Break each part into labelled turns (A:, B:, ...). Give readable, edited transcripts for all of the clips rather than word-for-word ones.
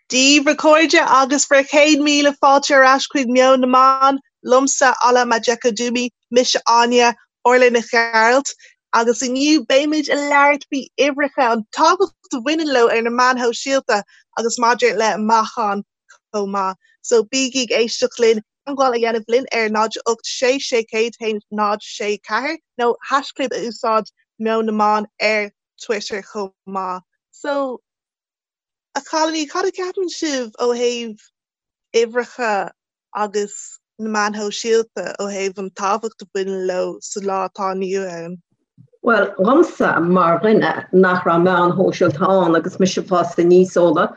A: Dia daoibh a chairde agus bhur chéad míle fáilte ar ais chuig Meon na Meán, liomsa Ola Majekodunmi, mise Áine, Orla Nic Ghearailt, agus inniu beimid ag labhairt faoi uimhreacha, an tábhacht a bhaineann leo ar na meáin shóisialta agus maidir le meáchan chomh maith. So bígí ag éisteacht linn, teagmháil a dhéanamh linn ar 0 8 6 6 1 0 6 4 nó haischlib a úsáid Meon na Meán ar Twitter chomh maith. So. A chailíní, cad a cheapann sibh ó thaobh uimhreacha agus na meáin shóisialta, ó thaobh an tábhacht a bhaineann leo sa lá atá inniu ann?
B: Bhuel, dhomsa, mar dhuine nach raibh meáin shóisialta ann agus mise ag fás aníos, Ola,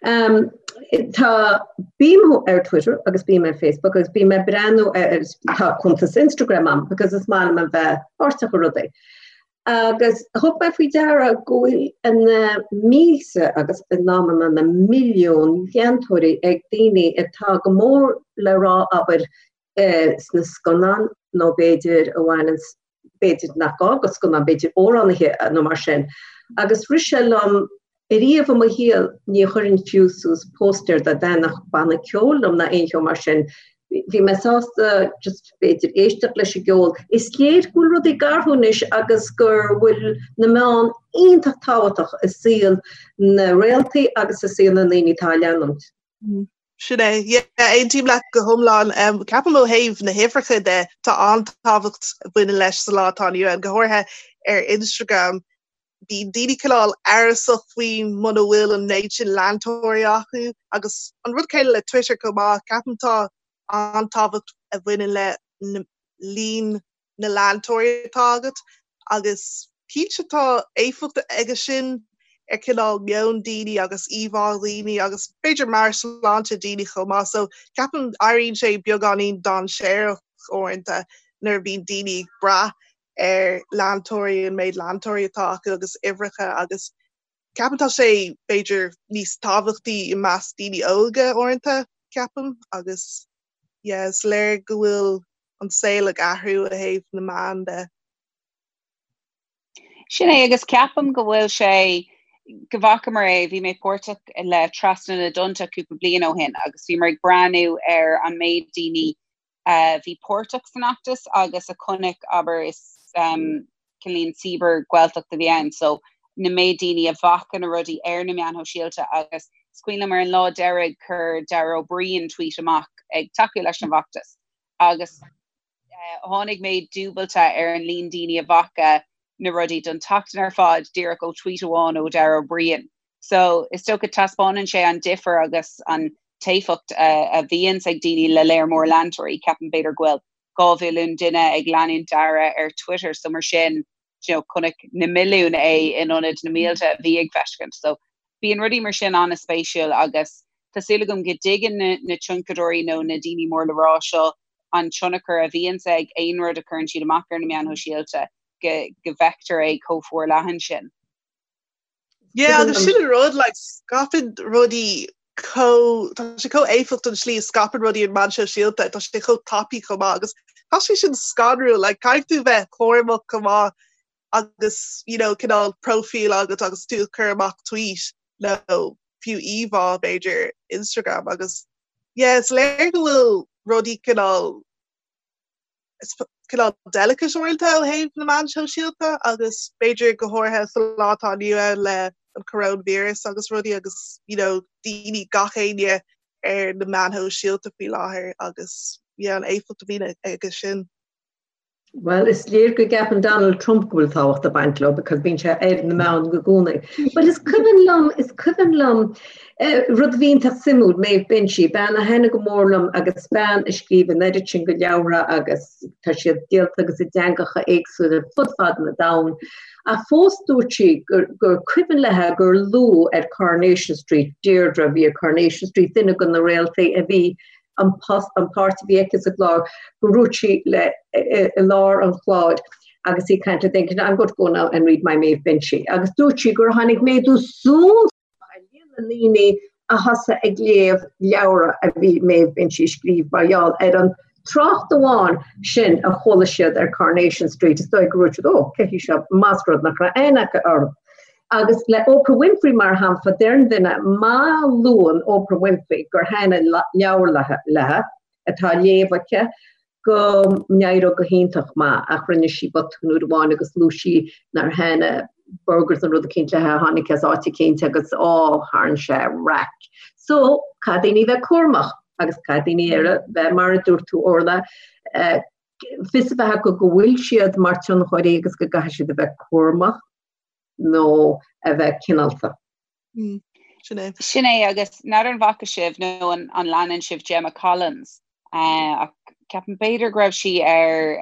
B: tá, bím ar Twitter agus bím ar Facebook agus bím ag breathnú ar, tá cuntas Instagram a'm because is maith liom a bheith páirteach i rudaí. Agus thug mé faoi deara go bhfuil na mílte agus in amanna na milliúin leantóirí ag daoine atá go mór le rá, abair, sna scannáin nó b'fhéidir a bhaineanns, b'fhéidir nach gá go scannáin, b'fhéidir amhránaithe nó mar sin. Agus rith sé liom Ariamh i mo shaol ní chuirfinn fiú suas póstaer dá dtaitneodh banna ceoil liom ná aon cheo mar sin. Bhí mé sásta just b'fhéidir éisteacht leis an gceol. Is léir go bhfuil rudaí ag athrú anois agus go bhfuil na meáin iontach tábhachtach i saol na réaltaí agus i saol na ndaoine atá á leanúint.
A: Sin é. Yeah, aontaím leat go hiomlán. Ceapaim ó thaobh na huimhreacha de, tá an-tábhacht a bhaineann leis sa lá atá inniu ann, go háirithe ar Instagram. Bíonn daoine cineál amhrasach faoi muna bhfuil an méid sin leantóirí acu agus an rud céanna le Twitter chomh maith. Ceapaim tá an-tábhacht a bhaineann le líon na leantóirí atá agat agus cinnte tá éifeacht aige sin ar cineál meon daoine agus íomhá dhaoine agus b'fhéidir meabhairshláinte daoine chomh maith. So ceapaim éiríonn sé beagáinín dainséarach uaireanta nuair a bhíonn daoine ag brath ar leantóirí, an méid leantóirí atá acu agus uimhreacha agus ceapaim tá sé b'fhéidir níos tábhachtaí i measc daoine óga uaireanta, ceapaim, agus yeah is léir go bhfuil an saol ag athrú ó thaobh na meán de.
C: Sin é agus ceapaim go bhfuil sé go bhfacamar é, bhí mé páirteach le Trasna na dTonnta cúpla bliain ó shin agus bhíomar ag breathnú ar an méid daoine a bhí páirteach san fheachtas agus a chonaic, abair, is cineáilín cibear-Ghaeltacht a bhí ann, so na méid daoine a bhfaca na rudaí ar na meáin shóisialta agus is cuimhin liom ar an lá deiridh chuir Dara Ó Briain tweet amach ag tacú leis an bhfeachtas agus tháinig méid dúbailte ar an líon daoine a bhfaca na rudaí don tseachtain ar fad díreach ó tweet amháin ó Dara Ó Briain. So is dócha taispeánann sé an difear agus an t-éifeacht a bhíonns ag daoine le léar mór leantóirí. Ceapaim b'fhéidir go bhfuil 2 mhilliún duine ag leanúint Dara ar Twitter so mar sin you know chonaic na milliúin é in ionad na mílte a bhí ag feiscint. So bíonn rudaí mar sin an-spéisiúil agus tá súil agam go dtuigeann na na tionchadóirí nó na daoine mór le rá seo an tionchar a bhíonns ag aon rud a chuireann siad amach ar na meáin shóisialta go go bhfeictear é chomh forleathan sin.
A: Yeah, agus sin an rud, like, scaipeann rudaí chomh, tá sé chomh éifeachtach an tslí a scaipeann rudaí ar na meáin shóisialta, tá sé chomh tapaidh chomh maith agus tá sé sin scanrúil, like, caithfidh tú bheith cúramach chomh maith agus, you know, cineál próifíl agat agus tú ag cur amach tweet nó fiú íomhá b'fhéidir Instagram agus yeah, is léir go bhfuil rudaí cineál cineál delicate uaireanta ó thaobh na meán sóisialta agus b'fhéidir go háirithe sa lá atá inniu ann le an coronavirus agus rudaí agus you know daoine gach éinne ar na meáin shóisialta faoi láthair agus yeah an éifeacht a bhíonn aige sin.
B: Bhuel, is léir go gceapann Donald Trump go bhfuil tábhacht ag baint leo because bíonn sé ar na meáin i gcónaí. But is cuimhin liom, is cuimhin liom Rud a bhí iontach suimiúil, Maeve Binchy, bean a thaitnigh go mór liom agus bean a scríobh an oiread sin de leabhra agus tá siad díolta agus i dteangacha éagsúla fud fad an domhain. Ach fós dúirt sí gur gur cuimhin léi gur luadh ar Coronation Street, Deirdre a bhí ar Coronation Street, duine de na réaltaí a bhí an post, an páirt a bhí aici sa gclár, go ndúirt sí le i lár an chláir agus í ag caint le duine, I'm going to go now and read my Maeve Binchy. Agus dúirt sí gur tháinig méadú suntasach ar líon na ndaoine a thosaigh ag léamh leabhra a bhí Maeve Binchy a scríobh mar gheall ar an trácht amháin sin a chuala siad ar Coronation Street. Is dóigh go ndúirt siad, ó, cé hí seo, más rud nach raibh aithne acu orthu. Agus le Oprah Winfrey mar shampla, deireann duine má luann Oprah Winfrey gur thaitin an leabhar léi, atá á léamh aici, go n-éireodh go hiontach maith ach rinne sí botún uair amháin agus luaigh sí nár thaitin burgers nó rud eicínt léi a tháinig as áit eicínt agus á tharraing sé raic. So, caithfidh daoine bheith cúramach agus caithfidh daoine ar a bheith mar a dúirt tú Orla, fios a bheith acu go bhfuil siad mar tionchairí agus go gcaithfidh siad a bheith cúramach nó a bheith cineálta.
A: Sin é.
C: Sin é agus n'fheadar an bhfaca sibh nó an an leanann sibh Gemma Collins ach ceapaim b'fhéidir go raibh sí ar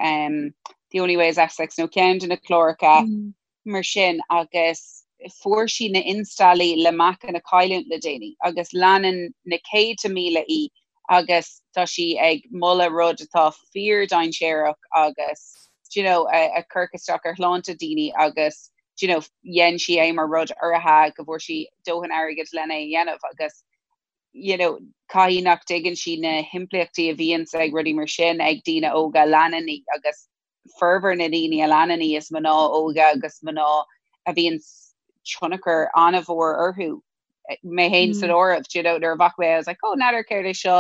C: The Only Way is Essex nó ceann de na cláracha mar sin agus fuair sí na installaí le meacan a chailliúint le déanaí agus leanann na céadta míle í agus tá sí ag moladh rud atá fíor-dainséarach agus do you know a chuirfeadh isteach ar shláinte daoine agus do you know dhein sí é mar rud urraithe go bhfuair sí dóthain airgid lena é a dhéanamh agus you know caithfidh nach dtuigeann sí na himpleachtaí a bhíonns ag rudaí mar sin ag daoine óga a leanann í agus formhór na ndaoine a leanann í is mná óga agus mná a bhíonn tionchar an-mhór orthu mé féin san áireamh do you know nuair a bhfaca mé I was like oh n'fheadar céard é seo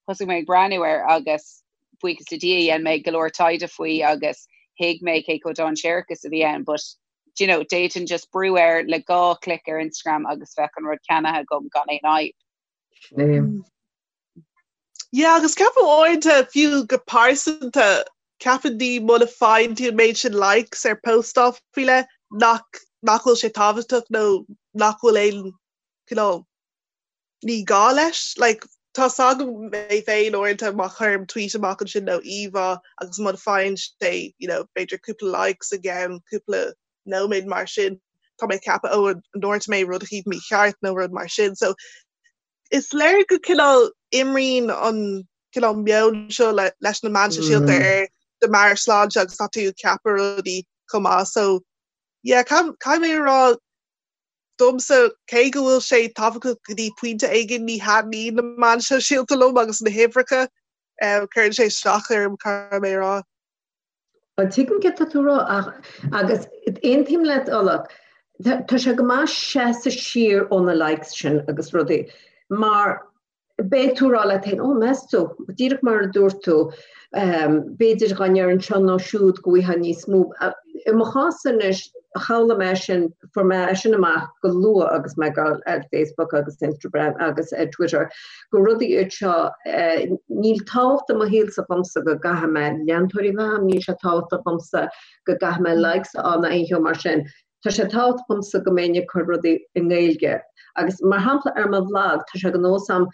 C: thosaigh mé ag breathnú air agus buíochas le Dia dhein mé go leor taighde faoi agus thuig mé cé chomh dainséarach is a bhí ann but do you know d'fhéadfainn just brú air le gá clic ar Instagram agus bheadh an rud ceannaithe agam gan aon fhadhb.
B: Sin é.
A: Yeah, agus ceapaim uaireanta fiú go pearsanta ceapann daoine muna faigheann tú an méid sin likes ar postáil faoi leith nach nach bhfuil sé tábhachtach nó nach bhfuil aon cineál ní gá leis. Like, tá 's agam mé féin uaireanta má chuirim tweet amach ansin nó íomhá agus muna faigheann sé you know, b'fhéidir cúpla likes i gceann cúpla nóiméad mar sin, tá mé ag ceapadh ó an ndúirt mé rud eicínt mícheart nó rud mar sin. So is léir go cineál imríonn an cineál meon seo leis na meáin shóisialta ar do mheabhairshláinte agus tá tú ag ceapadh rudaí chomh maith. So yeah, caithfidh mé a rá domsa cé go bhfuil sé tábhachtach go dtí pointe éigin ní thaitníonn na meáin shóisialta liom agus na huimhreacha cuireann sé isteach orm caithfidh mé a rá.
B: Bhuel, tuigim céard tá tú a rá ach, agus aontaím leat Orla, tá sé go maith seasamh siar ó na likes sin agus rudaí mar beidh tú a rá leat féin, ó meas tú, díreach mar a dúirt tú, b'fhéidir dá ndéarfainn seo nó siúd go bhfaighfeá níos mó. I mo chás anois, shamhlaigh mé sin, fuair mé é sin amach go luath agus mé ag dul ar Facebook agus Instagram agus ar Twitter, gur rudaí iad seo, níl tábhacht i mo shaolsa dhomsa go gcaithfidh mé leantóirí a bheith agam, níl sé tábhachtach dhomsa go gcaithfidh mé likes a fháil ná aon cheo mar sin. Tá sé tábhachtach dhomsa go mbeinn ag cur rudaí i nGaeilge. Agus mar shampla ar mo bhlag, tá sé de nós agam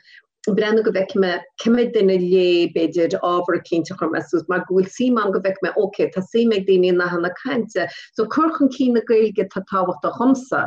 B: breathnú go bhfeicfidh mé cé mhéad duine a léigh, b'fhéidir, ábhar eicínt a chuir mé suas, mar go bhfuil suim agam go bhfeicfidh mé, ok, tá suim ag daoine i nathanna cainte. So cur chun cinn na Gaeilge atá tábhachtach dhomsa.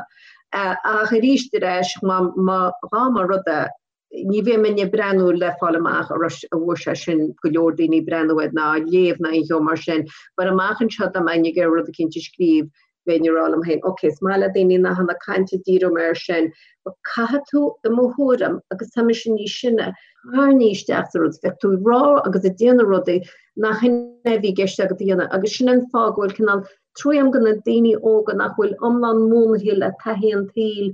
B: Ach arís ar ais, má, má, dhá mba rud é, ní bheidh mé ag breathnú le fáil amach an raibh, an bhfuair sé sin go leor daoine ag breathnú air ná á léamh ná aon cheo mar sin. But amach anseo dá mbeinn ag iarraidh rud eicínt a scríobh, bheinn ag rá liom féin, ok, is maith le daoine nathanna cainte, díreoidh mé air sin. But caithfidh tú, i mo thuairim, agus tá mise níos sine, tarraingthe isteach sa rud, bheadh tú ag rá agus ag déanamh rudaí nach shin é a bhí i gceist agat a dhéanamh agus sin an fáth go bhfuil cineál trua agam do na daoine óga nach bhfuil iomlán múnlaithe le taithí an tsaoil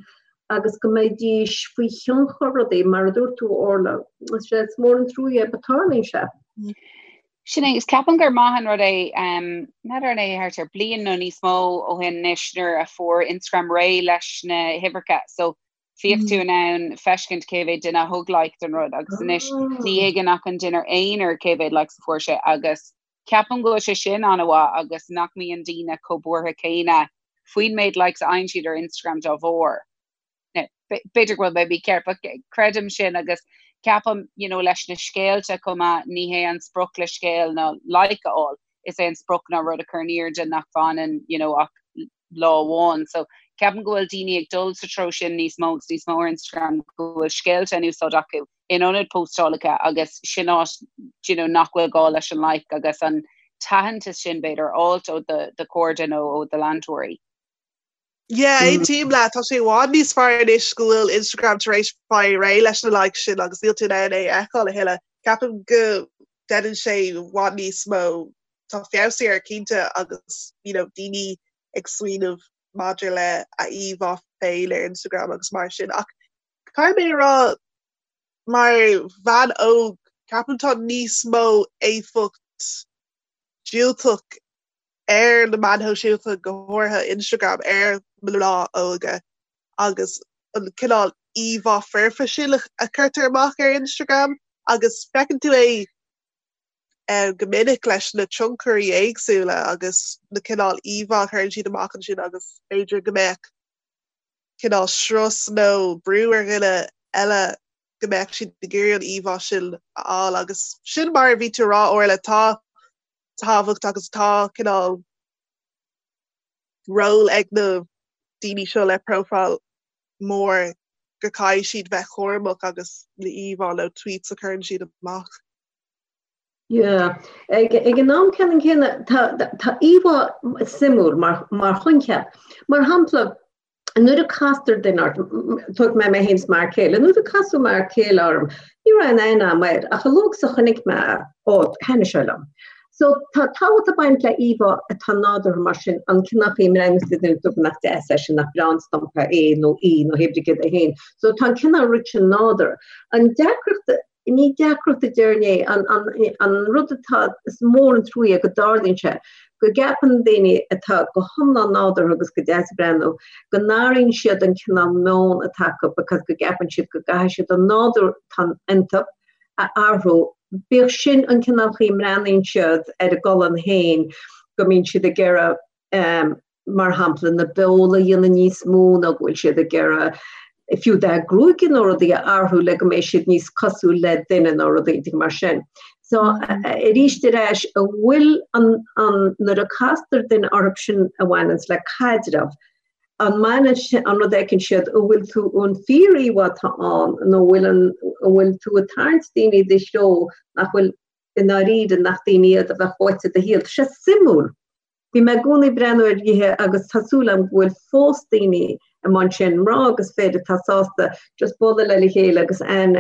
B: agus go mbeidís faoi thionchar rudaí, mar a dúirt tú, Orla. Is mór an trua é, but tarlaíonn sé.
C: Sin é, is ceapaim gur maith an rud é, n'fheadar an é thart ar bliain nó níos mó ó shin anois nuair a fuair Instagram réidh leis na huimhreacha so bhíodh tú in ann feiscint cé mhéad duine a thug like don rud agus anois ní thuigeann ach an duine aonair cé mhéad likes a fuair sé agus ceapaim go bhfuil sé sin an-mhaith agus nach mbíonn daoine chomh buartha céanna faoin méid likes a fhaigheann siad ar Instagram dá bharr. Now, b'fhéidir go bhfuil mé mícheart, but creidim sin agus ceapaim, you know, leis na scéalta chomh maith, ní hé an sprioc le scéal ná like a fháil, is é an sprioc ná rud a chur in airde nach bhfanann, you know, ach lá amháin. So ceapaim go bhfuil daoine ag dul sa treo sin níos mó agus níos mó ar Instagram, go bhfuil scéalta in úsáid acu in ionad postálacha agus sin áit you know, nach bhfuil gá leis an like agus an t-aitheantas sin b'fhéidir a fháilt ó do chairde nó ó do leantóirí.
A: Yeah, aontaím leat, tá sé i bhfad níos fearr anois go bhfuil Instagram tar éis fáil réidh leis na likes sin agus níl tú in ann é a fheiceáil a thuilleadh. Ceapaim go ndéanann sé i bhfad níos mó, tá feabhas air cinnte agus you know, daoine ag smaoineamh. maidir le a íomhá féin ar Instagram agus mar sin ach caithfidh mé a rá mar bhean óg ceapaim tá níos mó éifeacht diúltach ar na meáin shóisialta go háirithe Instagram ar mná óga agus an cineál íomhá foirfe sin a chuirtear amach ar Instagram agus feiceann tú é go minic leis na tionchairí éagsúla agus na cineál íomhá a chuireann siad amach ansin agus b'fhéidir go mbeadh cineál strus nó brú ar dhuine eile go mbeadh siad ag iarraidh an íomhá sin a fháil agus sin mar a bhí tú a rá Orla tá tábhacht agus tá cineál ról ag na daoine seo le profile mór go caithfidh siad bheith cúramach agus na íomhá nó tweets a chuireann siad amach.
B: Yeah. Ag, ag an am ceannann céanna tá, tá íomhá suimiúil mar, mar choincheap. Mar shampla, nuair a castar duine ort, tógfaidh mé mé féin is m'fhear céile, nuair a casadh m'fhear céile orm, ní raibh aon aithne agam air, ach a luaithe is a chonaic mé é, ó, thaitnigh sé liom. So tá tábhacht ag baint le íomhá atá nádúrtha mar sin, an cineál chaoi a mbreathnaíonn tú duine dúirt nach deas é sin, nach breá an stumpa é nó í nó hé brí céard é féin. So tá an cineál rud sin nádúrtha. An deacracht Ní deacracht a déarfainn é, an rud atá, is mór an trua é go dtarlaíonn sé, go gceapann daoine atá go hiomlán nádúrtha agus go deas ag breathnú, go n-athraíonn siad an cineál meon atá acu because go gceapann siad go gcaithfidh siad an nádúr atá iontu a athrú, bíodh sin an cineál chaoi a mbreathnaíonn siad ar a gcolainn féin, go mbíonn siad ag iarraidh mar shampla, na beola a dhéanamh níos mó nó go bhfuil siad ag iarraidh fiú dath gruaige nó rudaí a athrú le go mbeidh siad níos cosúil le duine nó rudaí mar sin. So arís ar ais, an bhfuil an, an, nuair a castar duine orthu sin a bhaineanns le caidreamh, an mbaineann sin, an rud a fheiceann siad, an bhfuil tú an fíor-íomhá atá ann nó an bhfuil an, an bhfuil tú ag tarraingt daoine i do threo nach bhfuil i ndáiríre nach daoine iad a bheadh uait i do shaol. Tá sé suimiúil. Bhí mé i gcónaí ag breathnú ar nithe agus tá súil agam go bhfuil fós daoine i mbun sin, mná agus fir atá sásta just bualadh le chéile agus an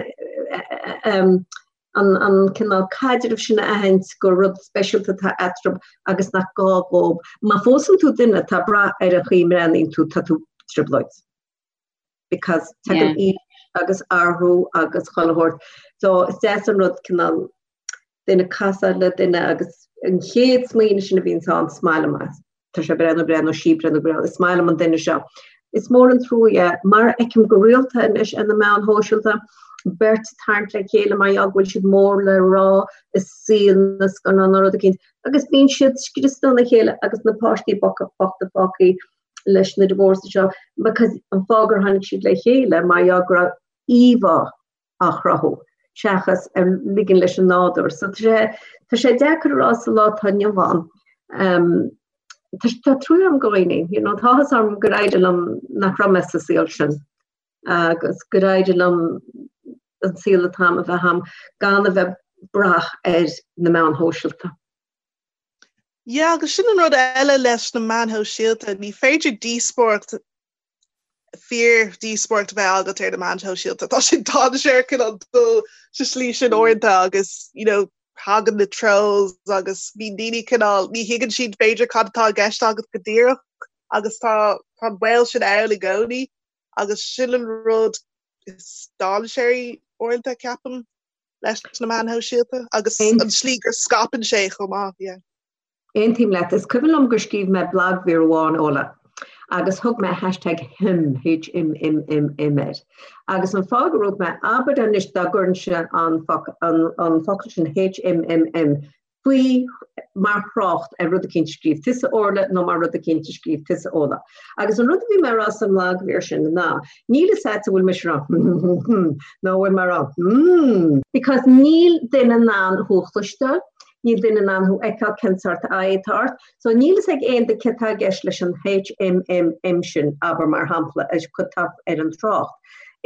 B: an cineál caidrimh sin a aithint gur rud speisialta atá eatarthu agus nach gá dhóibh. Má phósann tú duine atá ag brath ar an chaoi a mbreathnaíonn tú, tá tú i dtrioblóid. Because tagann aois agus athrú agus chuile shórt. So is deas an rud cineál duine casadh le duine agus an chéad smaoineamh sin a bhíonns ann, is maith liom é. Tá sé breá nó breá nó sí breá nó breá, is maith liom an duine seo. Is mór an trua é, mar a fheicim go rialta anois ar na meáin shóisialta, beirt ag tarraingt le chéile mar gheall go bhfuil siad mór le rá i saol na scannán nó rud eicínt, agus bíonn siad scriosta óna chéile agus na páistí bochta fágtha leis na divorces seo because an fáth gur tháinig siad le chéile mar gheall go raibh íomhá á chruthú seachas ar ligean leis an nádúr. So tá sé, tá sé deacair a rá sa lá atá inniu ann. Um, tá, tá trua agam do dhaoine, you know, tá áthas orm gur éirigh liom nach raibh mé sa saol sin agus gur éirigh liom an saol atá agam a bheith agam gan a bheith ag brath ar na meáin shóisialta.
A: Yeah, agus sin an rud eile leis na meáin shóisialta, ní féidir díospóireacht fíor-dhíospóireacht a bheith agat ar na meáin shóisialta. Tá sé dainséarach cineál dul sa slí sin uaireanta agus you know, tagann na trolls agus bíonn daoine cineál, ní thuigeann siad b'fhéidir cad atá i gceist agat go díreach agus tá tá an baol sin ann i gcónaí agus sin an rud is dainséaraí uaireanta ceapaim leis na meáin shóisialta agus an slí gur scaipeann sé chomh maith. Yeah.
B: Aontaím leat. Is cuimhin liom gur scríobh mé blagmhír amháin, Ola, agus thug mé hashtag HIMM, H-I-M-M-M-M air. Agus an fáth go raibh mé, abair anois dá gcuirinnse an an focal sin H-I-M-M-M faoi mar thrácht ar rud eicínt a scríobh tusa Orla nó mar rud eicínt a scríobh tusa Ola. Agus an rud a bhí mé a rá sa mblagmhír sin ná, níl fhios agat an bhfuil mise ag rá hmm nó an bhfuil mé ag rá hmm. Because níl duine in ann thú a chloisteáil, Níl duine in ann thú a fheiceáil cén sórt aghaidh atá ort. So níl fhios ag aon duine céard atá i gceist leis an HMMM sin, abair mar shampla, atá ar an trácht.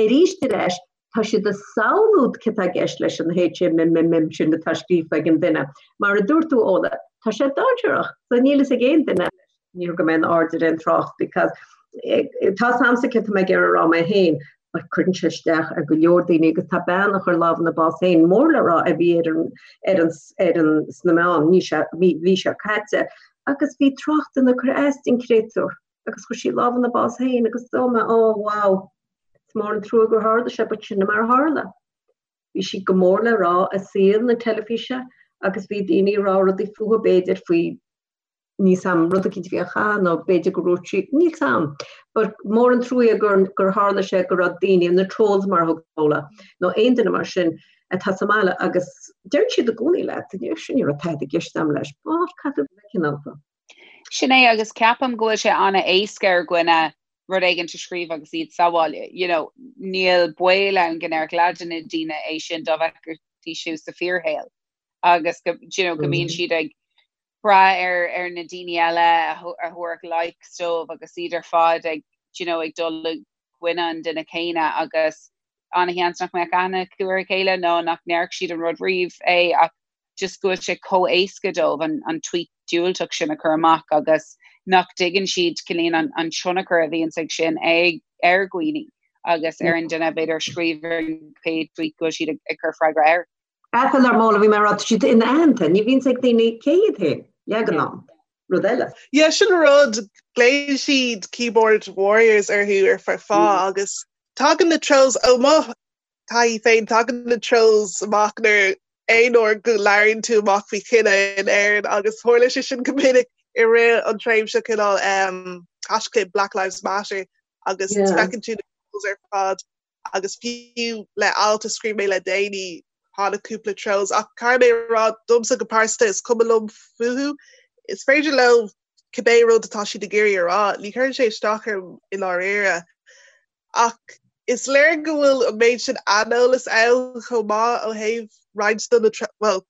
B: Arís ar ais, tá siad ag samhlú céard atá i gceist leis an HMMM sin atá scríofa ag an duine. Mar a dúirt tú, Ola, tá sé dainséarach. So níl fhios ag aon duine. Ní thug mé aon aird ar aon trácht because tá fhios a'msa céard atá mé ag iarraidh a rá mé féin but cuireann sé isteach ar go leor daoine agus tá bean a chuir lámh ina bás féin mór le rá a bhí ar an ar an ar an sna meáin mí seo mí mhí seo caite agus bhí tráchtanna ag cur as don créatúr. Agus chuir sí lámh ina bás féin agus dúirt mé, oh wow, is mór an trua gur tharla sé, but sin mar a tharla. Bhí sí go mór le rá i saol na teilifíse agus bhí daoine ag rá rudaí fúithi b'fhéidir faoi níl 's a'm, rud eicínt a bhí á chaitheamh nó b'fhéidir go ndúirt sí, níl 's a'm. But mór an truaighe gur, gur tharla sé go raibh daoine, na trolls mar a thug Fódhla, nó aon duine mar sin atá sa mbaile agus deireann siad i gcónaí leat, sin ní raibh tada i gceist a'm leis, but caithfidh tú bheith cineálta.
C: Sin é agus ceapaim go bhfuil sé an-éasca ar dhuine rud éigin a scríobh agus iad sa bhaile. You know, níl baol ann go ndéarfadh leath de na daoine é sin dá bhfeicfidís thú sa fíorshaol agus go, you know, go mbíonn siad ag brath ar, ar na daoine eile a thabharfadh likes dóibh agus iad ar fad ag, you know, ag dul i gcoinne an duine céanna agus an-sheans nach mbeadh aithne acu ar a chéile nó nach ndéarfadh siad an rud riamh é ach just go bhfuil sé chomh éasca dóibh an, an tweet diúltach sin a chur amach agus nach dtuigeann siad cineál an, an tionchar a bhíonns ag sin ag, ar dhaoine agus ar an duine b'fhéidir a scríobh an chéad tweet go bhfuil siad ag, ag cur freagra air.
B: Ethel ar Mhóla, bhí mé ag rá, tá siad inaitheanta, ní bhíonns ag daoine cé hiad féin, leath den am, rud eile.
A: Yeah, sin rud, glaonn siad keyboard warriors orthu ar feadh fáth agus tagann na trolls ó mo taithí féin, tagann na trolls amach nuair aon uair go labhraíonn tú amach faoi chine in Éirinn agus tharla sé sin go minic i rith an tréimhse cineál um, hashtag Black Lives Matter agus yeah. feiceann tú na trolls ar fad agus fiú le alt a scríobh mé le déanaí tháinig cúpla trolls ach caithfidh mé a rá domsa go pearsanta is cuma liom fúthu. Is féidir leo cibé rud atá siad ag iarraidh a rá, ní chuireann sé isteach orm i ndáiríre. Ach is léir go bhfuil an méid sin aineolas ann chomh maith ó thaobh roinnt de na, bhuel,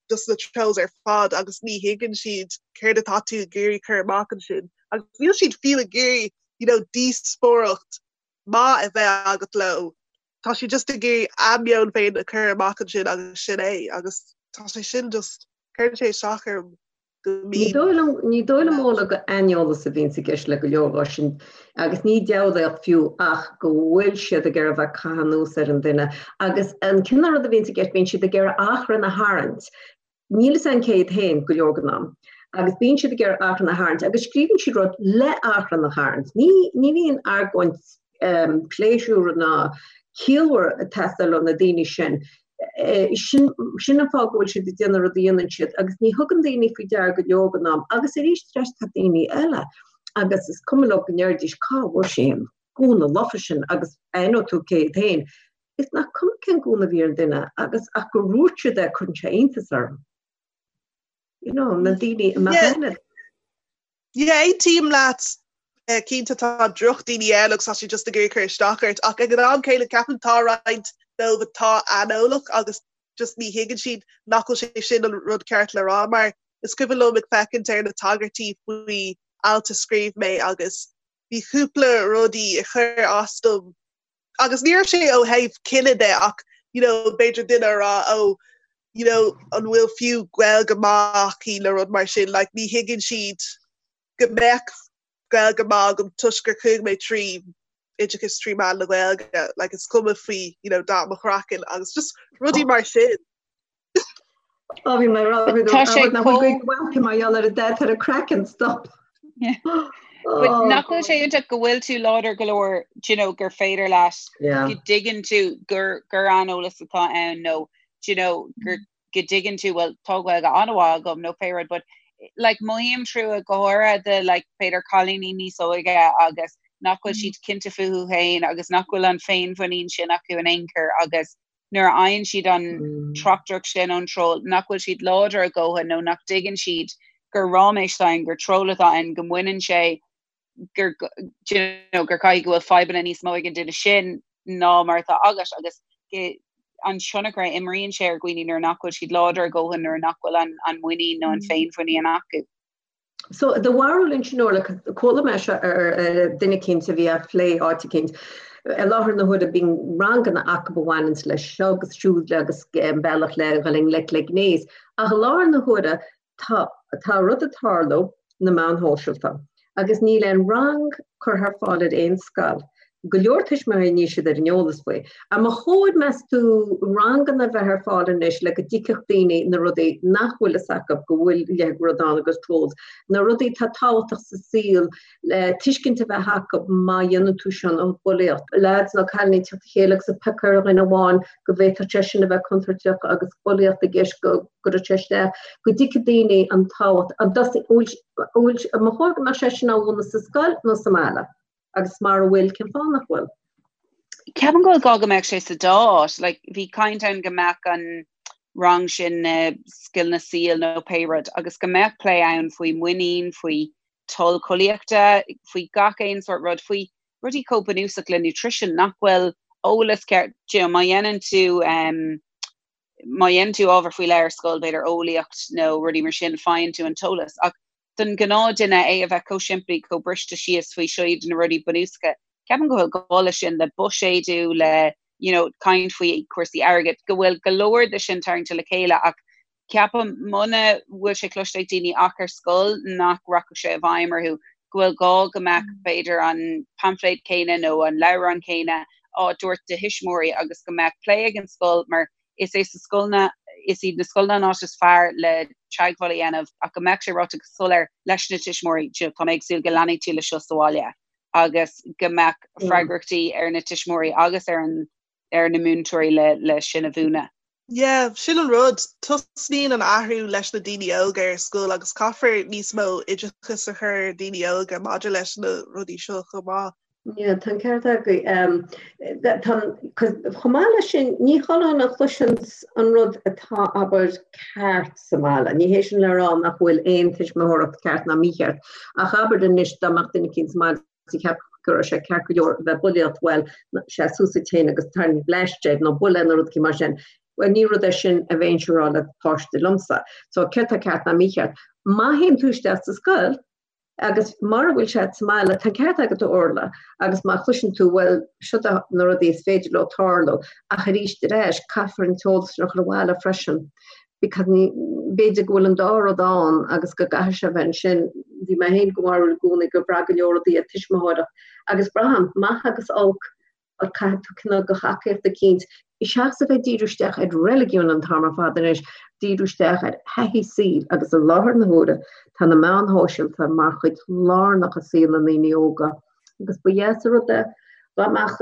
A: dos na trolls ar fad agus ní thuigeann siad céard atá tú ag iarraidh cur amach ansin. Agus níl siad fiú ag iarraidh, you know, díospóireacht maith a bheith agat leo. Tá siad just ag iarraidh a meon féin a chur amach ansin agus sin é agus tá sé sin just, cuireann sé isteach orm.
B: Ní dóigh liom, ní dóigh liom Fhódhla gur aineolas a bhíonns i gceist le go leor dhó sin agus ní diabhlaíocht fiú ach go bhfuil siad ag iarraidh bheith ag caitheamh anuas ar an duine agus an cineál rud a bhíonns i gceist bíonn siad ag iarraidh achrann a tharraingt. Níl fhios a'm cé hiad féin go leor den am agus bíonn siad ag iarraidh achrann a tharraingt agus scríobhann siad rud le achrann a tharraingt. Ní, ní bhíonn argóint pléisiúr ná ciallmhar ag teastáil ó na daoine sin. Sin sin an fáth go bhfuil siad ag déanamh rud a dhéanann siad agus ní thugann daoine faoi deara go leor den am agus arís ar ais tá daoine eile agus is cuma leo go ndéarfaidís cá bhfuair sé an gúna lofa sin agus aithneoidh tú cé hiad féin. Is nach cuma cén gúna a bhí ar an duine agus ach gur dhúirt siad é cuireann sé iontas orm. You know, na daoine a mbeadh
A: aithne. Yeah, aontaím leat. Cinnte tá drochdhaoine ann agus tá siad just ag iarraidh cur isteach ort ach ag an am céanna ceapaim tá roinnt dóibh atá aineolach agus just ní thuigeann siad nach bhfuil sé sin an rud ceart le rá mar is cuimhin liom ag féachaint ar na tagairtí faoi alt a scríobh mé agus bhí cúpla rudaí a chuir as dom agus ní raibh sé ó thaobh cine de ach you know b'fhéidir duine a rá oh you know an bhfuil fiú Gaeilge maith aici nó rud mar sin like ní thuigeann siad go mbeadh Gaeilge maith agam toisc gur chuaigh mé trí oideachas trí mheán na Gaeilge like is cuma faoi you know dath mo chraicinn agus just rudaí mar sin.
B: Ó bhí mé ag rá Tá sé nach bhfuil Gaeilge mhaith mar gheall ar an dath ar a craiceann stop.
C: But nach bhfuil sé iontach go bhfuil tú láidir go leor do you know, gur féidir leat go dtuigeann tú gur gur aineolas atá ann nó do you know, gur go dtuigeann tú well tá Gaeilge an-mhaith agam nó pé rud but like mothaím trua go háirithe do like b'fhéidir cailíní níos óige agus nach bhfuil siad cinnte fúthu féin agus nach bhfuil an féinmhuinín sin acu in aon chor agus nuair a fhaigheann siad an tráchtaireacht sin ón troll, nach bhfuil siad láidir a dhóthain nó nach dtuigeann siad gur ráiméis atá ann, gur troll atá ann, go mbaineann sé, gur, do you know, gur caithfidh go bhfuil fadhbanna níos mó ag an duine sin ná mar atá agat agus go, an tionchar a imríonn sé ar dhaoine nuair nach bhfuil siad láidir a dhóthain, nuair nach bhfuil an, an muinín nó an féinmhuinín acu.
B: So do bharúil ansin Orla, chuala mé seo ar duine eicínt a bhí á phlé áit eicínt. I láthair na huaire bíonn ranganna acu a bhaineanns leis seo agus siúd agus an bealach le dhul i ngleic le gnéas. Ach i láthair na huaire tá tá rud ag tarlú na meáin shóisialta agus níl aon rang curtha ar fáil ar aon scoil. Go leor tuismitheoirí níl siad ar an eolas faoi. An mba chóir, meas tú, ranganna a bheith ar fáil anois le go dtuigfeadh daoine na rudaí nach bhfuil fhios acu go bhfuil a leithéid de rud ann agus trolls, na rudaí atá tábhachtach sa saol le tuiscint a bheith acu má dhéanann tú sin an bhulaíocht. Lads nó cailíní ag teacht le chéile agus ag piocadh ar dhuine amháin go bhféadfadh sé sin a bheith contúirteach agus bulaíocht i gceist go gcuirfeadh sé isteach, go dtuigfidh daoine an tábhacht. An bhfuil, an mba chóir go mbeadh sé sin á mhúineadh sa scoil nó sa mbaile? Agus mara bhfuil, cén fáth nach bhfuil?
C: Ceapaim go bhfuil gá go mbeadh sé sa dá áit. Like, bhí caint ann go mbeadh an rang sin na scileanna saoil nó pé rud agus go mbeadh plé ann faoi muinín, faoi toil collaíochta, faoi gach aon sórt rud, faoi rudaí chomh bunúsach le nutrition nach bhfuil eolas ceart, you know, má dhéanann tú um, má dhéanann tú ábhar faoi leith ar scoil, b'fhéidir eolaíocht nó rudaí mar sin, faigheann tú an t-eolas. Ach don ghnáthduine é a bheith chomh simplí, chomh briste síos faoi seo iad na rudaí bunúsacha. Ceapaim go bhfuil gá leis sin, le buiséadú, le you know, caint faoi chúrsaí airgid, go bhfuil go leor de sin tarraingte le chéile ach ceapaim muna bhfuil sé cloiste ag daoine ach ar scoil nach rachadh sé i bhfeidhm orthu, go bhfuil gá go mbeadh b'fhéidir an paimfléad céanna nó an leabhrán céanna á dtabhairt do thuismitheoirí agus go mbeadh plé ag an scoil mar Is é sa scoileanna, is iad na scoileanna an áit is fearr le teagmháil a dhéanamh ach go mbeadh sé ráite go soiléir leis na tuismitheoirí, you know, tá mé ag súil go leanfaidh tú le seo sa bhaile agus go mbeadh freagrachtaí ar na tuismitheoirí agus ar an ar na múinteoirí le le sin a mhúineadh.
A: Yeah, sin an rud. Tosnaíonn an athrú leis na daoine óga ar scoil agus caithfear níos mó oideachas a chur ar daoine óga maidir leis na rudaí seo chomh maith.
B: Yeah, tá an ceart agaibh. Chomh maith leis sin, ní chuile dhuine a chloiseanns an rud atá, abair, ceart sa mbaile. Ní hé sin le rá nach bhfuil aon tuismitheoireacht ceart ná mícheart, ach abair anois dá mbeadh duine eicínt sa mbaile is a cheapfadh go raibh sé ceart go leor a bheith ag bulaíocht, bhuel, seas suas duit féin agus tarraing bleaist air nó buail é nó rud eicínt mar sin. Bhuel, ní rud é sin a bheinnse a rá le páiste liomsa. So, céard tá ceart ná mícheart? Má théann tú isteach sa scoil, Agus mara bhfuil sé sa mbaile, tá an ceart agat a Orla, agus má chloiseann tú, bhuel, seo na rudaí is féidir leo tarlú, ach arís ar ais, caithfear an t-eolas sin a chur abhaile freisin, because ní, b'fhéidir go bhfuil an dá rud ann agus go gcaithfidh sé a bheith ansin. Bhí mé féin den bharúil i gcónaí gur bhraith go leor rudaí ar tuismitheoireacht, agus braithim, maith agus olc, ach caithfidh tú cineál de thacaíocht eicínt, seachas a bheith ag díriú isteach ar reiligiún an t-am ar fad anois, díriú isteach ar thaithí saoil agus i láthair na huaire tá na meáin shóisialta mar chuid lárnach i saol na ndaoine óga agus ba dheas an rud é dá mbeadh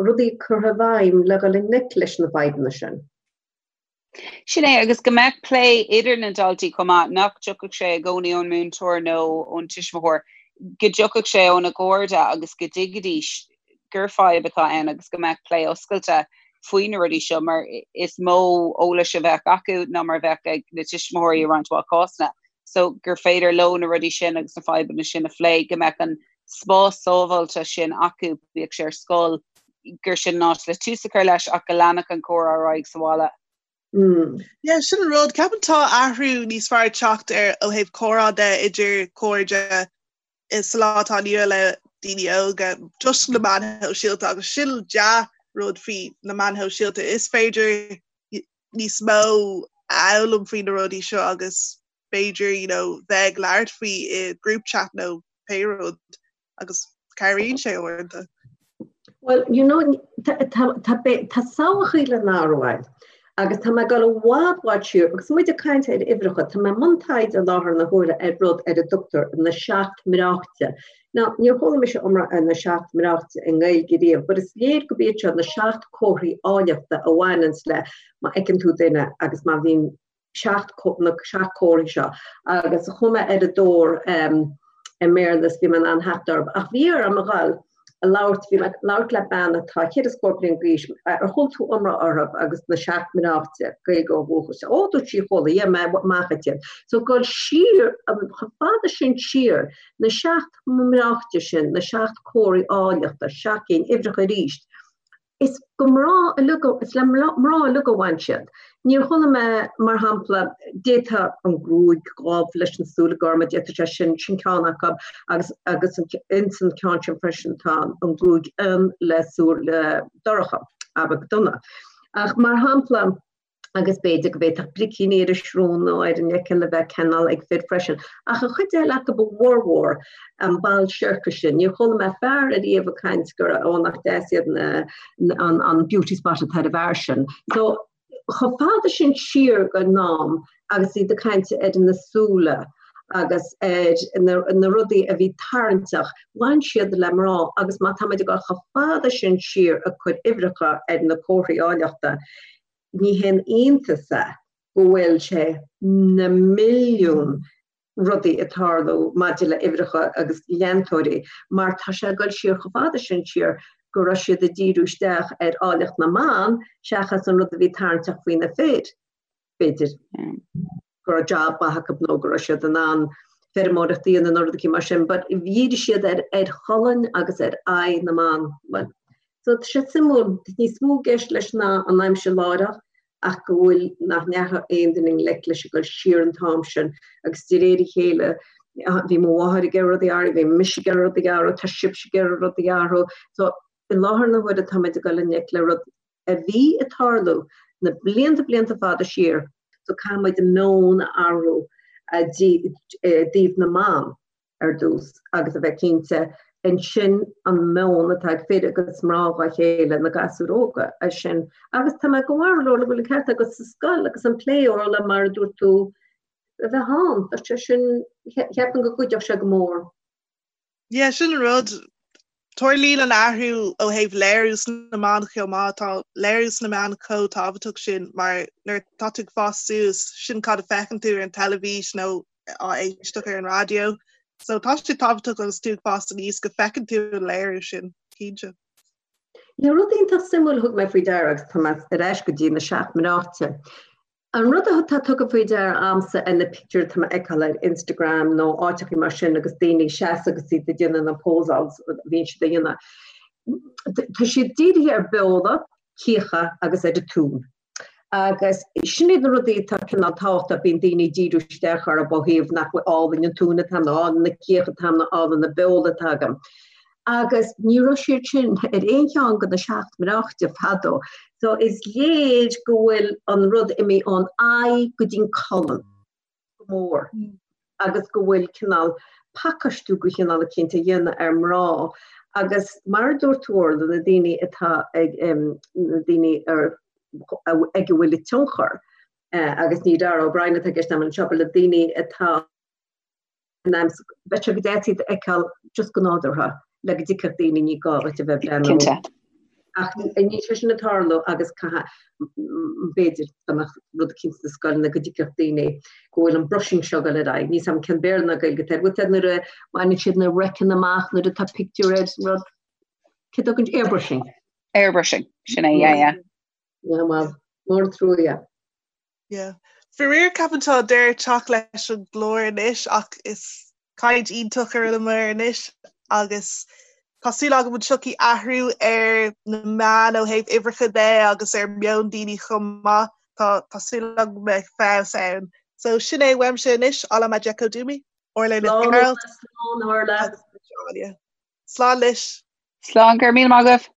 B: rudaí curtha i bhfeidhm le dhul i ngleic leis na fadhbanna sin.
C: Sin é, agus go mbeadh plé idir na daltaí chomh maith, nach dtiocfadh sé i gcónaí ón múinteoir nó ón tuismitheoir, go dtiocfadh sé óna gcairde agus go dtuigfidís gur fadhb atá ann agus go mbeadh plé oscailte faoi na rudaí seo mar is mó eolais a bheadh acu ná mar a bheadh ag na tuismitheoirí i roinnt mhaith cásanna. So gur féidir leo na rudaí sin agus na fadhbanna sin a phlé, go mbeadh an spás sábháilte sin acu, bíodh sé ar scoil, gur sin an áit le tús a chur leis ach go leanfadh an comhrá ar aghaidh sa bhaile.
A: Yeah, sin an rud. Ceapaim tá athrú níos fearr ag teacht ar ó thaobh comhrá de idir cairde sa lá atá inniu le daoine óga toisc na meáin shóisialta agus sin dea-rud faoi na meáin shóisialta. Is féidir níos mó a fhoghlaim faoi na rudaí seo agus b'fhéidir you know, bheith ag labhairt faoi i group chat nó pé rud agus cabhraíonn sé uaireanta.
B: Well, you know, tá samhlacha le n-athrú ann agus tá mé ag dul i bhfad bhfad siar agus muid ag caint ar uimhreacha, tá mé i mbun taighde i láthair na huaire ar rud ar a dtugtar na seacht mbreáichte. Now, níor chuala mise iomrá ar na seacht mbreáichte i nGaeilge riamh, but is léir gurb iad seo na seacht comharthaí áilleachta a bhaineanns le má fheiceann tú duine agus má bhíonn 7 na 7 comharthaí seo agus chuaigh mé ar a dtóir i mBéarla is bhí mé in ann theacht orthu ach bhí orm a dhul a labhairt, bhí mé ag labhairt le bean atá 100 bliain d'aois, ar chuala tú iomrá orthu agus na seacht mbreáichte, Gaeilgeoir ó dhúchas, ó dúirt sí chuala, yeah mé amach iad. So dul siar, chomh fada sin siar, na seacht mbreáichte sin, na seacht comharthaí áilleachta, seacht gcinn, uimhreacha arís. Is go mná uilig, is le mná uilig a bhain siad. Níor chuala mé, mar shampla, d'fhéadfadh an gruaig dhubh leis na súile gorma, d'fhéadfadh sé sin, sin ceann acu, agus, agus ins an ceann sin freisin tá an gruaig fhionn le súile dorcha, abair donna. Ach mar shampla. Agus b'fhéidir go bhféadfadh bricíní ar an srón nó ar an fhiacail a bheith cineál ag fir freisin. Ach an chuid eile acu, a bhformhór, an ball siorcais sin, níor chuala mé fear ariamh ag caint gur ó nach deas iad na, an, an beauty spot atá ar an bhfear sin. So, chomh fada sin siar den am agus iad ag caint ar na súile agus ar na, na rudaí a bhí tarraingteach, bhain siad le mná agus má táimid ag dul chomh fada sin siar ag cur uimhreacha ar na comharthaí áilleachta, Ní haon iontas é go bhfuil sé na milliún rudaí ag tarlú maidir le uimhreacha agus leantóirí mar tá sé ag dul siar chomh fada sin siar go raibh siad ag díriú isteach ar áilleacht na mban seachas an rud a bhí tarraingteach faoi na fir, b'fhéidir. go raibh job maith acu nó go raibh siad in ann feirmeoireacht a dhéanamh nó rud eicínt mar sin, but dhírigh siad ar ar cholainn agus ar aghaidh na mban. Well, so tá sé suimiúil, níos mó i gceist leis ná an aimsir láithreach ach go bhfuil nach ndeachaigh aon duine i ngleic leis ag dul siar an t-am sin agus de réir a chéile bhí mo mháthair ag iarraidh rudaí a athrú, bhí mise ag iarraidh rudaí a athrú, tá sibhse ag iarraidh rudaí a athrú. So i láthair na huaire táimid ag dul i ngleic le rud a bhí ag tarlú na blianta blianta fada siar, so caithfidh muid an meon a athrú i dtaobh na mban ar dtús agus a bheith cinnte ansin an meon atá ag fir agus mná dhá chéile, na gasúir óga, é sin. Agus tá mé go bhfuil go bhfuil an ceart agat sa scoil agus an plé Orla mar a dúirt tú a bheith ann, tá sé sin, cheapfainn go gcuideodh sé go mór.
A: Yeah, sin an rud. Tarlaíonn an athrú ó thaobh léiriú sna meáin chomh maith. Tá léiriú sna meáin chomh tábhachtach sin mar nuair atá tú ag fás suas, sin cad a feiceann tú ar an teilifís nó á éisteacht ar an raidió. So tá sé tábhachtach agus tú ag fás aníos go bhfeiceann tú an léiriú sin, cinnte.
B: Yeah, rud iontach suimiúil a thug mé faoi deara agus tá mé ar ais go dtí na seacht mBreáite. An rud atá tugtha faoi deara a'msa ar na pictiúir atá mé a fheiceáil ar Instagram nó áiteachaí mar sin agus daoine ag seasamh agus iad ag déanamh na pósáils a bhíonn siad a dhéanamh, tá siad dírithe ar beola, cíocha agus ar an tóin. Agus sin iad na rudaí atá cineál tábhachtach, bíonn daoine ag díriú isteach orthu ó thaobh nach bhfuil álainn an tóin atá agam, nó álainn na cíocha atá agam, nó álainn na beola atá agam. Agus ní raibh siad sin ar aon cheann de na seacht mbreáite fadó. So is léir go bhfuil an rud imithe ón aghaidh go dtí'n colainn go mór agus go bhfuil cineál pacáistiú de chineál eicínt á dhéanamh ar mná agus mar a dúirt tú Orla, na daoine atá ag, na daoine ar, ag a bhfuil an tionchar agus ní Dara O'Brien atá i gceist agam anseo, but na daoine atá in ainm is bheadh sé go deas iad a fheiceáil just go nádúrtha le go dtuigfeadh daoine ní gá duit a bheith ag breathnú.
C: Cinnte.
B: Ach níl sé sin ag tarlú agus caithfidh, b'fhéidir, dá mbeadh rud eicínt sna scoileanna go dtuigfeadh daoine go bhfuil an brushing seo ag dul ar aghaidh. Níl 's a'm cén Béarla ná Gaeilge atá air. Bhfuil 's a'd nuair a bhaineann siad na raiceanna amach nuair atá pictiúr ar rud, cé dtugann, airbrushing.
C: Airbrushing, sin é, yeah, yeah.
B: Yeah, well, mór an trua, yeah.
A: Yeah. Faraor ceapaim tá deireadh ag teacht leis an gclár anois ach is caint iontach a rinneamar anois agus tá súil agam go dtiocfaidh athrú ar na meáin ó thaobh uimhreacha de agus ar meon daoine chomh maith. Tá tá súil agam go mbeidh feabhas ann. So sin é uaimse anois, Alamadjekodumi, Orla Nic
B: Gearailt. Slán Orla.
A: Slán leis.
C: Slán, go raibh míle maith agaibh.